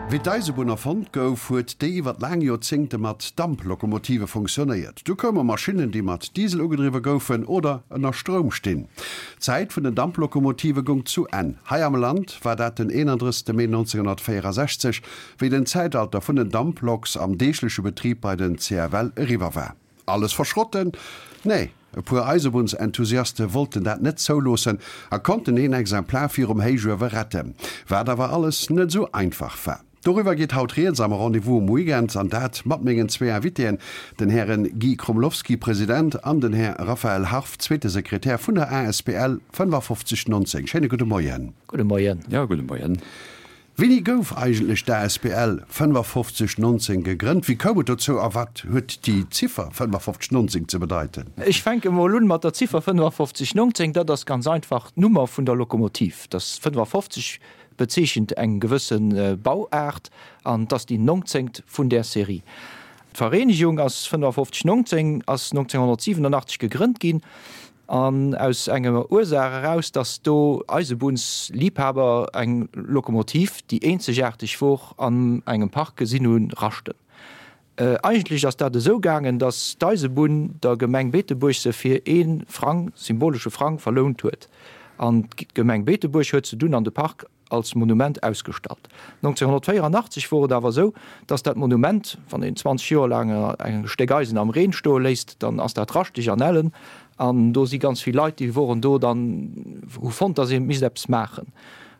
Wéi d'Eisebunn erfonnt gouf, huet déi iwwer laang Joerzéngte mat Damplokomotive funktionéiert. Du koume Maschinnen, déi mat Diesel ugedriwwe goufen oder ënner Stroum stinn. D'Zäit vun den Damplokomotive goung zu Enn. Hei am Land war dat den 31. Mee 1964, wéi den Zäitalter vun den Damploks am deegleche Betrib bei den CFL eriwwer war. Alles verschrotten? Nee, e puer Eisebunnsenthousiaste wollten dat net zouloossen a konnten een Exemplar virum Héichuewe retten, wat awer alles net esou einfach war. Doriwwer geet haut rieds am Rendez-vous um Weekend an dat mat mengen zwee Invitéen, den Hären Guy Krumlowski, President, an den Här Raphaël Harf, zweete Sekretär vun der asbl 5519. Schéine gudde Moien. Gudde Moien. Jo, gudde Moien. Wéini gouf eigentlech d'ASBL 5519 gegrënnt? Wéi koum et dozou a wat huet déi Ziffer 5519 ze bedeiten? Ech fänke mol un mat der Ziffer 5519. Dat ass ganz einfach d'Nummer vun der Lokomotiv. Das 55 bezeechent eng gewësse Bauaart an 't ass déi nongzéngt vun där Serie. D'Vereenegung ass 5519 ass 1987 gegrënnt ginn. An aus enger Ursaach eraus, dass do Eisebunnsliebhaber eng Lokomotiv, déi eenzegaarteg wor, an engem Park gesinn hunn raschten. Eigentlech ass dat esou gaangen, dass d'Eisebunn der Gemeng Beetebuerg se fir ee Frang, symbolesche Frang, verlount huet. An d'Gemeng Beetebuerg huet se dunn an de Park als Monument ausgestallt. 1984 wor et awer esou, dass dat Monument, wann een 20 Joer laang e Stéck Eisen am Reen stoe léisst, dann ass dat raschteg an ellen. An do si ganz vill Leit, déi woren do dann, hu fonnt, dass ee misst eppes maachen.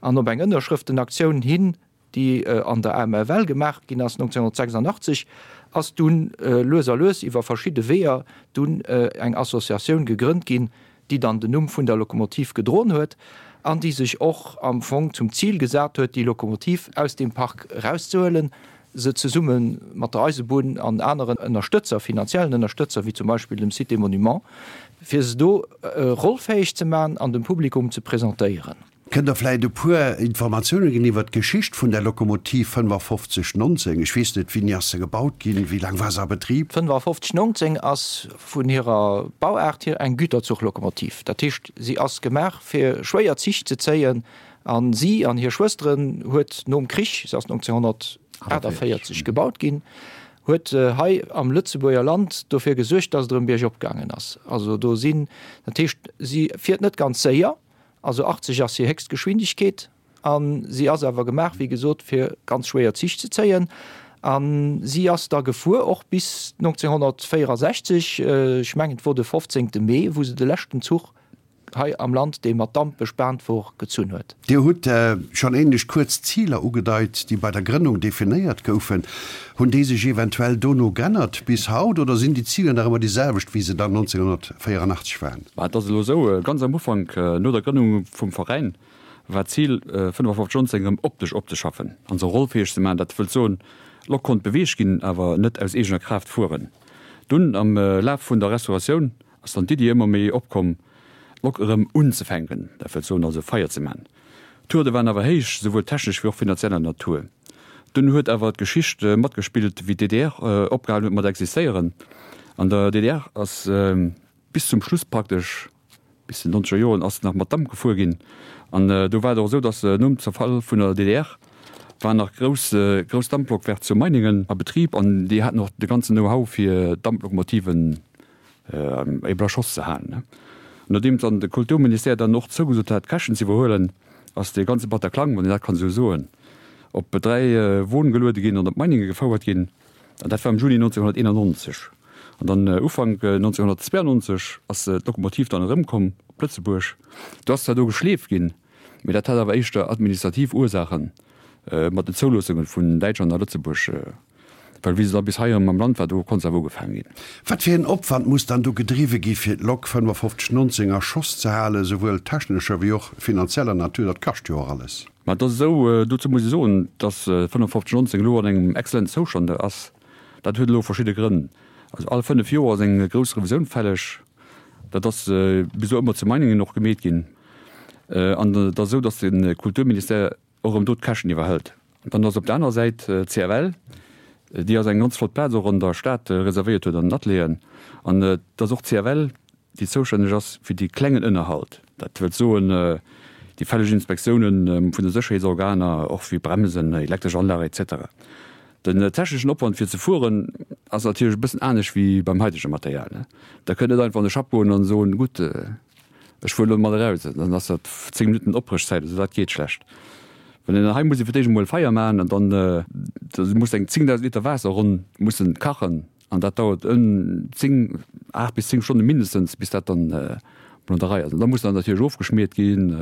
An op eng Ënnerschrëftenaktioun hin, déi an der AMFL gemaach ginn ass 1986, ass dunn lues a lues iwwer verschidde Weeër dunn eng Associatioun gegrënnt ginn, déi dann den Numm vun der Lokomotiv gedroen huet an déi sech och am Fong zum Zil gesat huet, déi Lokomotiv aus deem Park erauszehuelen, se zesumme mat der Eisebunn an aneren Ënnerstëtzer, finanziellen Ënnerstëtzer, wéi zum Beispill dem Site des Monuments, fir se do rollfäeg ze maachen an dem Publikum ze presentéieren. Kënnt Der vläit e puer Informatioune ginn iwwer d'Geschicht vun der Lokomotiv 5519? Ech weess net, wéini ass se gebaut ginn, wéi laang war se a Betrib? 5519 ass vun hirer Bauaart hier eng Güterzuchlokomotiv. Dat heescht, si ass gemaach fir schwéier Zich ze zéien a si an hir Schwësteren huet nom Krich, se ass 1948 gebaut ginn, huet hei am Lëtzebuerger Land dofir gesuergt, datt et erëm biergop gaangen ass. Also do sinn, dat heescht, si fiert net ganz séier, Also 80 ass hir héchst Geschwindegkeet a si ass awer gemaach, wéi gesot, fir ganz schwéier Zich ze zéien. A si ass da gefuer och bis 1964, ech mengen et wor de 15. Mee, wou se de leschten Zuch hei am Land, dee mat Damp bespaant wor, gezunn huet. Dir hutt schonn ähnlech kuerz Ziler ugedeit, déi bei der Grënnung definéiert goufen. Hunn déi sech eventuell dono g'ännert bis haut oder sinn déi Ziler nach ëmmer déi selwecht, wéi se dann 1984 waren? Mä et ass elo esou, ganz am Ufank, no der Grënnung vum Veräin, war d'Zil, 55 19 erëm optesch opzeschaffen an se rollfäeg ze maachen. Dat wëllt soen, d'Lok konnt beweegt ginn, awer net aus eegener Kraaft fueren. Dunn, am Laf vun der Restauratioun, ass dann d'Iddi ëmmer méi opkomm, d'Lok erëm unzefänken, dat wëllt soen also Feier ze man. D'Hürde waren awer héich, souwuel technesch wéi och finanzieller Natur. Dunn huet awer d'Geschicht matgespillt, wéi d'DDR opgehalen huet mat existéieren. An der DDR ass bis zum Schluss praktesch, bis den nonzeger Joren, ass nach mat Damp gefuer ginn. An do war et och esou, datt nom Zerfall vun der DDR waren nach grouss grouss Damplokwerk zu Meiningen a Betrib an déi haten och de ganzen Know-how fir Damplokomotiven Eeben a Schoss ze halen. Nodeem dann de Kulturministère dann och zougesot hat, d'Käschten ze iwwerhuelen, ass dee ganze Bataklang, wann een dat kann esou soen, op 3 Won geluede ginn an op Meininge gefouert ginn. An dat war am Juni 1991. An dann Ufank 1992 ass d'Lokomotiv dann erëmkomm op Lëtzebuerg. Do ass zwar do geschleeft ginn, mee dat hat awer éischter administrativ Ursaachen mat den Zouloossunge vun Däitschland a Lëtzebuerg. Well wéi se da bis hei erëm am Land war, do konnt se awer ugefaangen ginn. Wat fir een Opwand muss dann do gedriwwe gi fir d'Lok 5519 a Schoss ze halen, souwuel technescher wéi och finanzieller Natur? Dat kascht jo och alles. Mä et ass esou, dozou muss ee soen, datt 5519 elo an engem exzellenten Zoustand ass. Dat huet elo verschidde Grënn. Also all 5 Joer ass eng grouss Revisioun fälleg. Dat ass bis elo ëmmer zu Meiningen och gemeet ginn. An et ass esou, datt de Kulturministère och erëm do d'Käschten iwwerhëlt. Dann ass op der anerer Säit d'CFL, déi eis eng ganz flott Plaz och an der Stad reservéiert huet an den Atelieren. An et ass och d'CFL, déi zoustänneg ass fir dee klengen Ënnerhalt. Dat wëllt soen, Déi fälleg Inspektiounen vun de Sécherheetsorganer, och wéi Bremsen, elektresch Anlage etc. Den techneschen Opwand fir ze fueren ass natierlech e bëssen anescht wéi beim haitege Material. Da kënnt net einfach an de Schapp goen an soen, gutt, ech fueren elo mat eraus, dann ass dat 10 Minutten Opbréchzäit, also dat geet schlecht. Well een hei muss ee fir d'éischt emol Feier maachen an dann da muss eng 10.000 Liter Waasser ronn mussen kachen an dat dauert en 10, 8 bis 10 Stonne mindestens bis dat dann mol an der Rei ass. An da muss dann natierlech ofgeschmiert ginn,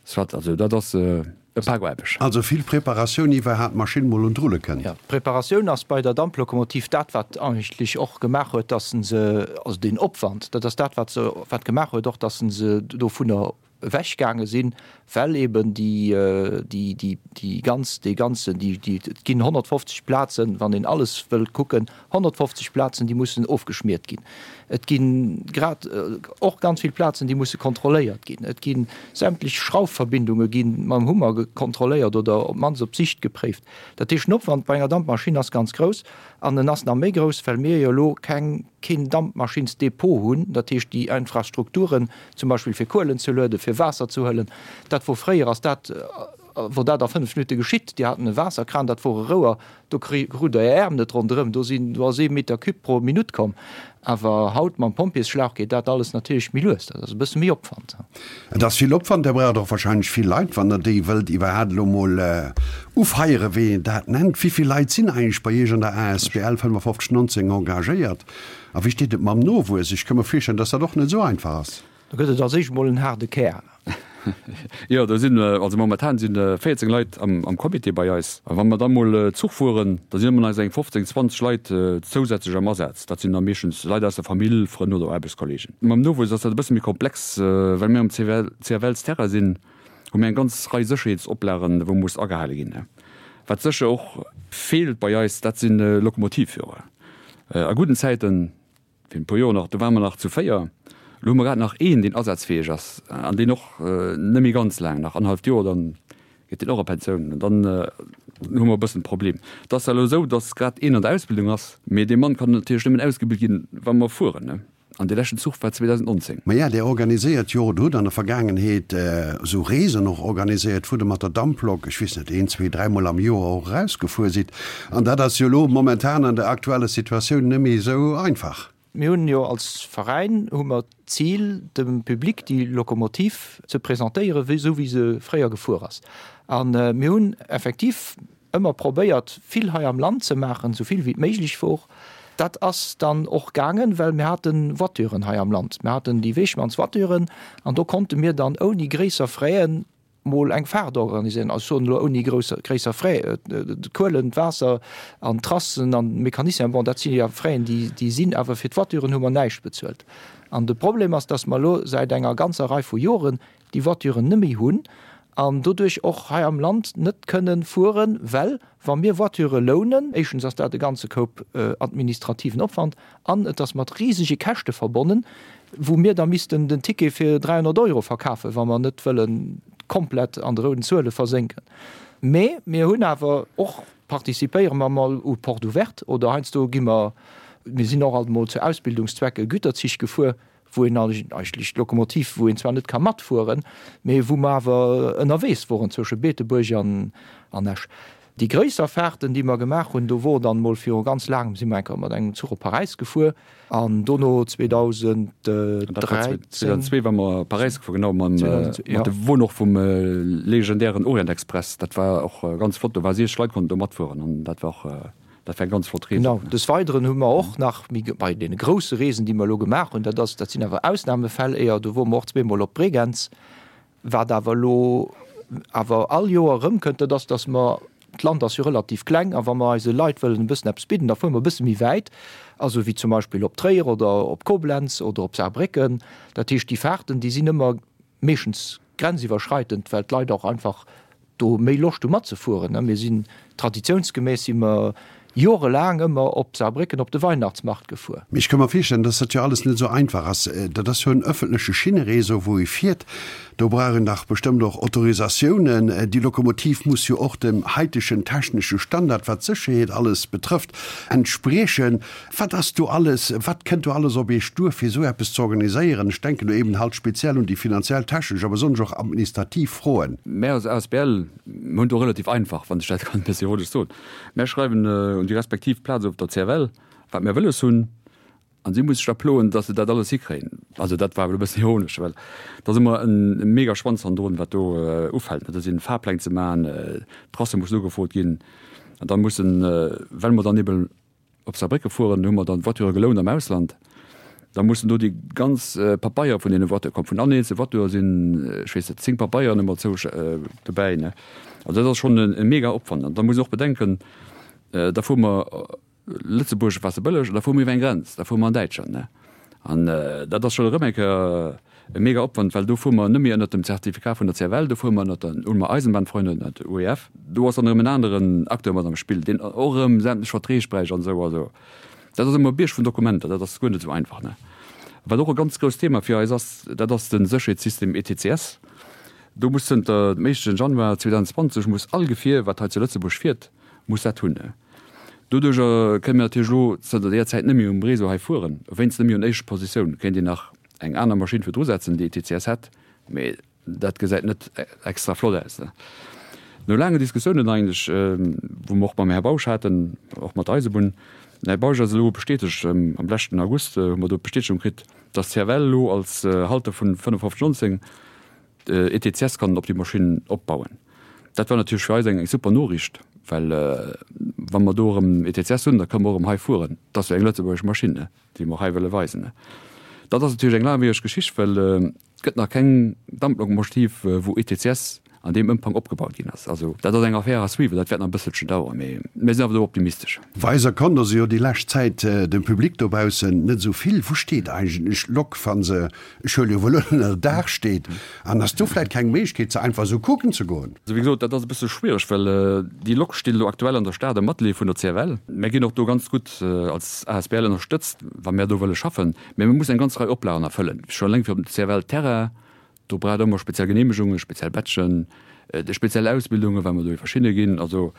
soit, also dat ass. E Pak Aarbecht. Also vill Preparatioun iwwerhaat d'Maschinn mol un d'Rulle kënnt. Jo, d'Preparatioun ass bei der Damplokomotiv dat wat eigentlech och gemaach huet, dass en se, also deen Opwand, dat ass dat wat se, wat gemaach huet och, dass en se dovunner ewech gaange sinn, well eben déi, déi, déi, déi ganz, dee ganzen, déi, déi, et ginn 150 Plazen, wann een alles wëllt kucken, 150 Plazen, déi mussen ofgeschmiert ginn. Et gi grad och ganz vill Plazen, déi musse kontrolléiert ginn. Et gi sämtlech Schraufverbindunge gi mam Hummer kontrolléiert oder op d'mannst op Sicht gepréift. Dat heescht, den Opwand bei enger Dampmaschinn ass ganz grouss. An en ass nach méi grouss, well mir jo elo keng, keen Dampmaschinnsdepot hunn. Dat heescht, déi Infrastrukturen, zum Beispill fir Kuelen ze lueden, fir Waasser ze huelen, dat wor fréier, ass dat, wor dat a 5 Minutte geschitt. Dir haten e Waasserkran, dat wor e Rouer, Do krut der Är Äerm net ronderëm, do sinn, do ass ee Meter cube pro Minutt komm. Awer haut mam Pompjeesschlauch geet dat alles natierlech méi lues, dat ass e bësse méi Opwand. Et ass vill Opwand, Där braucht och wahrscheinlech vill Leit, wann Der déi wëllt iwwerhaapt elo mol ufeieren, wéi een dat nennt. Wéi vill Leit sinn eigentlech bei Iech an der asbl 5519 engagéiert a wéi steet et mam Nowuess? Ech ka mer virstellen, dass dat och net esou einfach ass. Do gëtt et als éischt mol en haarde Kär. Jo, do sinn, also momentan si 14 Leit am Comité bei eis. A wa mer da mol Zuch fueren, da sinn ëmmer nach esou eng 15, 20 Leit zousätzlech am Asaz. Dat sinn da meeschtens Leit aus der Famill, Frënn oder Aarbechtskollegen. Mam Nowuess ass dat e bësse méi komplex. Well mir am CFL-Terrain sinn, hu mir eng ganz Rei Sécherheetsoplagen, wou muss agehale ginn. Wat sécher och feelt bei eis, dat si Lokomotivführer. A gudden Zäiten Virun e puer Joer nach, do ware mer nach zu 4. Elo hu mer grad nach een, deen asazfäeg ass an deen och net méi ganz laang, nach annerhalleft Joer, dann geet deen och a Pensioun. An dann hu mer e bëssen e Problem. Et ass zwar elo esou, datt grad een an der Ausbildung ass, mee dee Mann kann natierlech nëmmen ausgebilt ginn, wa mer fueren. An dee leschten Zuch war 2019. Maja, Dir organiséiert jo oder hutt an der Vergaangenheet esou Reesen och organiséiert, wou Der mat der Damplok, ech weess net, een, zwee, dräimol am Joer och erausgefuer sidd. An dat ass jo elo momentan an der aktueller Situatioun net méi esou einfach. Mir hunn jo als Veräin hu mer d'Zil, dem Public déi Lokomotiv ze presentéieren, wéi esou wéi se fréier gefuer ass. A mir hunn effektiv ëmmer probéiert, vill hei am Land ze maachen, esou vill wéi et méiglech wor. Dat ass dann och gaangen, well mir hate Voituren hei am Land. Mir haten déi Wegmanns-Voituren an do konnte mir dann ouni gréisser Fraisen mol eng Fahrt organiséieren, also ech soen elo ouni grousser, gréisser Frais, d'Kuelen, d'Waasser an d'Trassen an d'Mécaniciens, bon dat si jo Fraisen déi, déi sinn, awer fir d'Voituren hu mer näischt bezuelt. An de Problem ass, dass mer elo säit enger ganzer Rei vu Joren déi Voituren net méi hunn an doduerch och hei am Land net kënnen fueren, well wa mir Voiture lounen, éischtens ass dat e ganze Koup administrativen Opwand an et ass mat risege Käschte verbonnen, wou mir da missten den Ticket fir 300 Euro verkafen, wa mer net wëlle komplett an de rouden Zuele versénken. Mee mir hunn awer och, participéiere mer mol u Porte ouverte oder heiansdo gi mer, mir sinn och alt mol zu Ausbildungszwecke Güterzich gefuer, wou een eigentlech d'Lokomotiv, wou een zwar net ka matfueren, mee wou mer awer ënnerwees woren zwësche Beetebuerg an Esch. Déi gréisser Fahrten, déi mer gemaach hunn, do wor dann mol viru ganz laangem, si mer eng Kéier mat engem Zuch op Paräis gefuer an dono 2013. 2002 war mer Paräis gefuer, genau, mam, mat de Won och vum legendären Orient Express. Dat war och ganz flott, do war 60 Leit konnten do matfueren an dat war och, dat war eng ganz flott Rees. Genau. Des Weideren hu mer och nach méi bei deene grousse Reesen, déi mer elo gemaach hunn, dat ass, dat sinn awer Ausnahmefäll éier, do wor mer och zweemol op Bregenz, Wat awer elo awer all Joer erëmkënnt, dat ass, datt mer, d'Land ass jo relativ kleng, a wa mer eise Leit wëllen e bëssen eppes bidden, da fuere mer e bësse méi wäit, also wéi zum Beispill op Tréier oder op Koblenz oder op Saarbrécken. Dat heescht, déi Fahrten, déi sinn ëmmer meeschtens grenziwwerschreitend, well d'Leit och einfach do méi Loscht hu matzefueren. Mir sinn traditiounsgemäss si mer. Jorelaang ëmmer op Saarbrécken op de Weihnachtsmarkt gefuer. Mee ech ka mer virstellen, dass dat jo alles net esou einfach ass. Dat ass jo en ëffentleche Schinneréseau, wou ee fiert. Do brauch een dach bestëmmt och Autorisatiounen. Déi Lokomotiv muss jo och dem haitegen technesche Standard, wat d'Sécherheet alles betrëfft, entspriechen. Wat ass do alles, wat kënnt do alles op Iech duer, fir esou eppes ze organiséieren? Ech denken do eben halt speziell un déi finanziell, technesch a besonnesch och administrativ Froen. Mär als asbl hunn do relativ einfach, wann ech dat kann e bëssi ironesch soen. Mär schreiwen un déi respektiv Plaz op der CFL, wat mär wëlles hunn, an si muss sech da ploen, datt se dat alles hikréien. Also dat war elo e bëssen ironesch, well et ass ëmmer e mega Schwanz hannendrun, wat do ufält. Dat sinn Fahrpläng ze maachen, d'Tracë mussen ugefrot ginn, an da mussen, well mer dann ebe Op Saarbrécke fueren, hu mer dann d'Voiture gelount am Ausland. Da mussen do déi ganz Papeier vun deene Voiture kommen. Vun all eenzelne Voiture sinn, ech weess net, 10 Papeieren ëmmer zou dobäi, ne. Also dat ass schonn e mega Opwand. An da muss een och bedenken, da fuere mer, Lëtzebuerg war ze bëlleg, an da fuere mer iwwer eng Grenz, da fuere mer an Däitschland, ne. An dat ass schonn erëm eng Kéier e mega Opwand, well do fuere mer net méi ënnert dem Zertifikat vun der CFL, do fuere mer ënnert der Ulmer Eisenbahnfreunde, ënnert der UEF. Do ass dann erëm en aneren Acteur mat am Spill, deen och erëm sämtlech Verträg bräicht an esou. Also dat ass ëmmer e Bierg vun Dokumenter, dat ass guer net esou einfach, ne. Wat och e ganz grousst Thema fir eis ass, dat ass de Sécherheetssystem ETCS. Do muss zënter dem éischten Januar 2020 muss all Gefier, wat hei zu Lëtzebuerg fiert, muss dat hunn. Doduercher kënne mir natierlech elo zënter deeër Zäit net méi um Réseau hei fueren, wéinst net méi un éischter Positioun. Kéint een nach eng aner Maschinn virdru setzen, déi ETCS hätt, mee dat gesäit net extra flott aus. No laangen Diskussiounen eigentlech, wou mer och mam Här Bausch haten, och mat der Eisebunn, den Här Bausch ass elo bestätegt, am leschten August hu mer do d'Bestätegung kritt, dass d'CFL elo als Halter vun 5519 ETCS kann op déi Maschinn opbauen. Dat war natierlech fir eis eng super Noriicht, well wa mer do erëm ETCS hunn, da kënne mer och erëm hei fueren. Dat ass jo eng lëtzebuergesch Maschinn, déi mer hei wëlle weisen. Dat ass natierlech eng laangwiereg Geschicht, well et gëtt nach keng Damplokomotiv, wou ETCS an deem Ëmfang opgebaut ginn ass. Also dat ass eng Affaire à suivre, dat wäert nach e bësselchen daueren, mee mir sinn awer do optimistesch. Weiser konnt also jo déi lescht Zäit dem Public dobaussen net esou vill. Wou steet eigentlech d'Lok, wa se Ech huele jo wuel un, ënner Daach steet. An ass do vläit keng Méiglechkeet, se einfach esou kucken ze goen? Also wéi gesot, dat ass e bësse schwiereg, well déi Lok steet elo aktuell an der Stad am Atelier vun der CFL. Mär ginn och do ganz gutt als asbl ënnerstëtzt, wa mär do wëlle schaffen. Mä mir mussen eng ganz Rei Oplagen erfëllen, scho eleng fir op dem CFL-Terrain. Do braucht ëmmer speziell Geneemegungen, speziell Badgen, speziell Ausbildungen, well mer do iwwer Schinne ginn. Also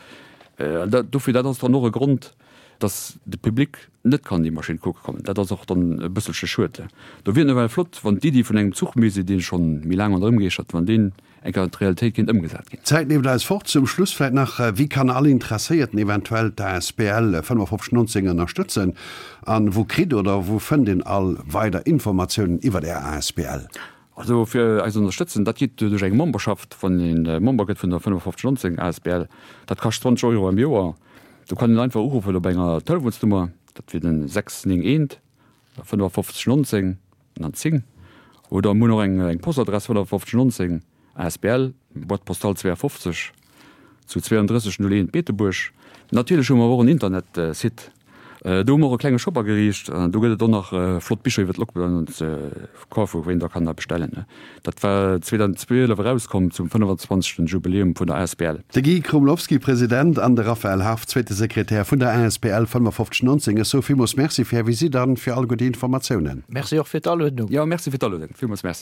dofir, dat ass dann och e Grond, dass de Public net kann déi Maschinn kucke kommen. Dat ass och dann e bësselche schued. Do wier et nawell flott, wann d'Iddi vun engem Zuchmusée, dee scho méi laang ronderëm geeschtert, wann deen eng Kéier an d'Realitéit kéint ëmgesat ginn. D'Zäit leeft eis fort. Zum Schluss vläit nach, Wéi kann all Interesséierten eventuell d'ASBL 5519 ënnerstëtzen? An wou kritt oder wou fënnt een all weider Informatiounen iwwert Är asbl? Also fir eis ze ënnerstëtzen, dat geet duerch eng Memberschaft, wann ee Member gëtt vun der 5519 asbl, dat kascht 20 Euro am Joer. Do kann een einfach uruffen op enger Telefonsnummer, dat wier den 691 55 19 an dann 10. Oder mir hunn och eng Postadress 5519 asbl, Boîte postale 52 zu 3201 Beetebuerg. Natierlech hu mer awer och en Internetsite. Do hu mer och e klenge Shop ageriicht. Do gëtt et och nach flott Bicher iwwer d'Lokbahn ze kafen, wou een da kann da bestellen. Dat war 2012 erauskomm zum 25. Jubiläum vun der asbl. De Guy Krumlowski, President, an de Raphaël Harf, zweete Sekretär vun der asbl 5519. Ech soe villmools Merci fir Är Visitt an fir alleguer déi Informatiounen. Merci och fir d'Aluedung. Jo, merci fir d'Aluedung. Villmools Merci.